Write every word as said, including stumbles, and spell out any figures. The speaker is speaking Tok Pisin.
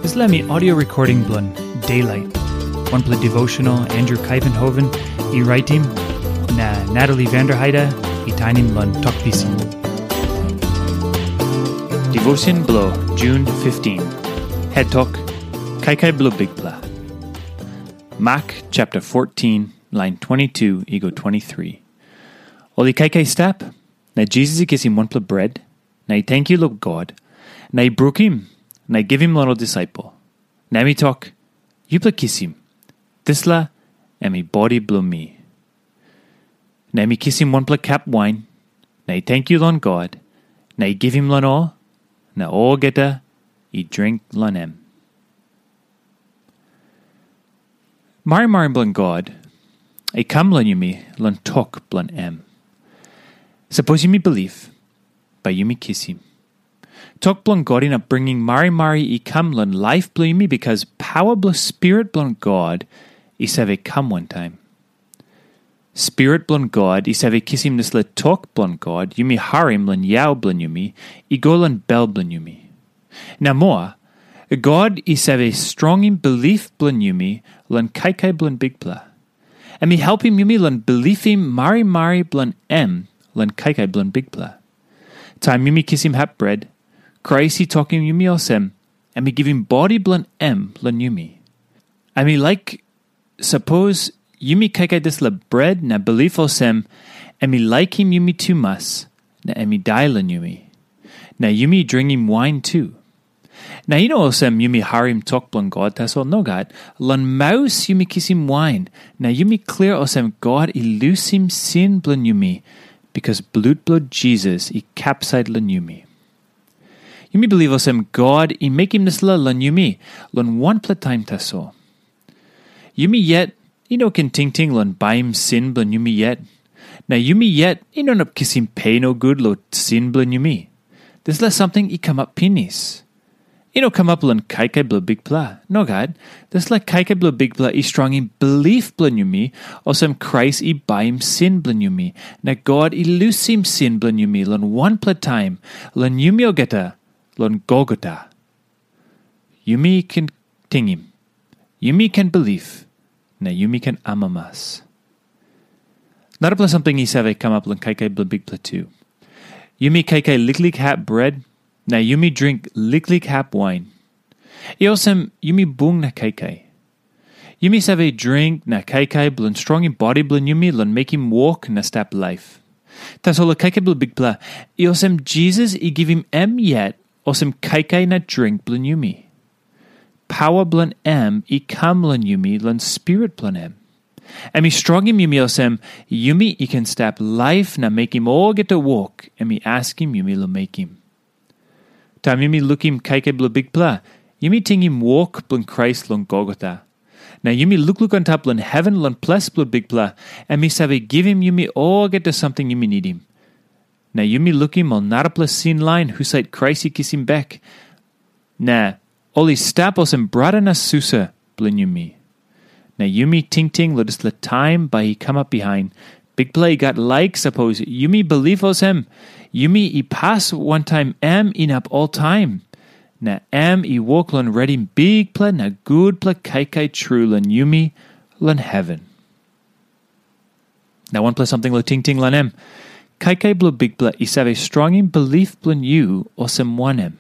Dispela mi audio recording bilong Daylight, wanpela devotional Andrew Kaivenhoven i raitim, na Natalie Vanderheide i tainim long Tok Pisin. Devotion bilong June fifteen. Het tok, Kaikai bilong Bikpela. Mak chapter fourteen, lain twenty-two i go twenty-three. Ol i kaikai stap, na Jisas i kisim wanpela bret, na i tenkyu long God, na i brukim, na i givim long ol disaipel. Na em i tok, "Yupela kisim, dispela em i bodi bilong mi." Na em i kisim wanpela kap wain, na i tenkyu long God, na i givim long ol, na olgeta i dring long em. Marimari bilong God i kam long yumi long tok bilong em. Sapos yumi bilip, bai yumi kisim. Tok bilong God inap bringim marimari i kam long laip bilong yumi, bikas pawa bilong Spirit bilong God i save kam wantaim. Spirit bilong God i save kisim dispela tok bilong God yumi harim long yau bilong yumi i go long bel bilong yumi. Na moa, God i save strongim bilip bilong yumi long kaikai bilong Bikpela. Em i helpim yumi long bilipim marimari bilong em long kaikai bilong Bikpela. Taim yumi kisim hap bret, Krais i tokim yumi olsem, em i givim bodi bilong em long yumi. Em i laik, sapos yumi kaikai dispela bret na bilip olsem, em i laikim yumi tumas, na em i dai long yumi. Na yumi dringim wain tu. Na i no olsem yumi harim tok bilong God tasol, nogat. Long maus yumi kisim wain, na yumi klia olsem God i lusim sin bilong yumi, bikas blut bilong Jisas i kapsait long yumi. Yumi bilip olsem God i mekim dispela long yumi long wanpela taim tasol. Yumi yet i no ken tingting long baim sin bilong yumi yet. Na yumi yet i no inap kisim pe nogut long sin bilong yumi. Dispela samting i kamap pinis. I no kamap long kaikai bilong Bikpela. Nogat, dispela kaikai bilong Bikpela i strongim bilip bilong yumi, olsem Krais i baim sin bilong yumi, na God i lusim sin bilong yumi long wanpela taim, long yumi olgeta, long Golgota. Yumi ken tingim, yumi ken bilip, na yumi ken amamas. Narapela samting i save kamap long kaikai bilong Bikpela tu. Yumi kaikai liklik hap bret, na yumi dring liklik hap wain. I olsem yumi bung na kaikai. Yumi save dring na kaikai bilong strongim bodi bilong yumi long mekim wok na stap laip. Tasol kaikai bilong Bikpela, i olsem Jisas i givim em yet olsem kaikai na dring bilong yumi. Pawa bilong em i kam long yumi long Spirit bilong em. Em i strongim yumi olsem, yumi i ken stap laip na mekim olgeta wok em i askim yumi long mekim. Taim yumi lukim kaikai bilong Bikpela, yumi tingim wok bilong Krais long Golgota. Na yumi lukluk antap long heven long ples bilong Bikpela, em i save givim yumi olgeta samting yumi nidim. Na yumi lukim ol narapela sin lain husat Krais i kisim bek. Na ol i stap olsem brata na susa bilong yumi. Na yumi tingting long dispela taim bai i kamap bihain, Bikpela i gat laik sapos yumi bilip olsem, yumi i pas wantaim em inap oltaim. Na em i wok long redim bikpela na gutpela kaikai tru long yumi long heven. Na wanpela samting long tingting long em, kaikai bilong Bikpela i save strongim bilip bilong yu olsem wanem?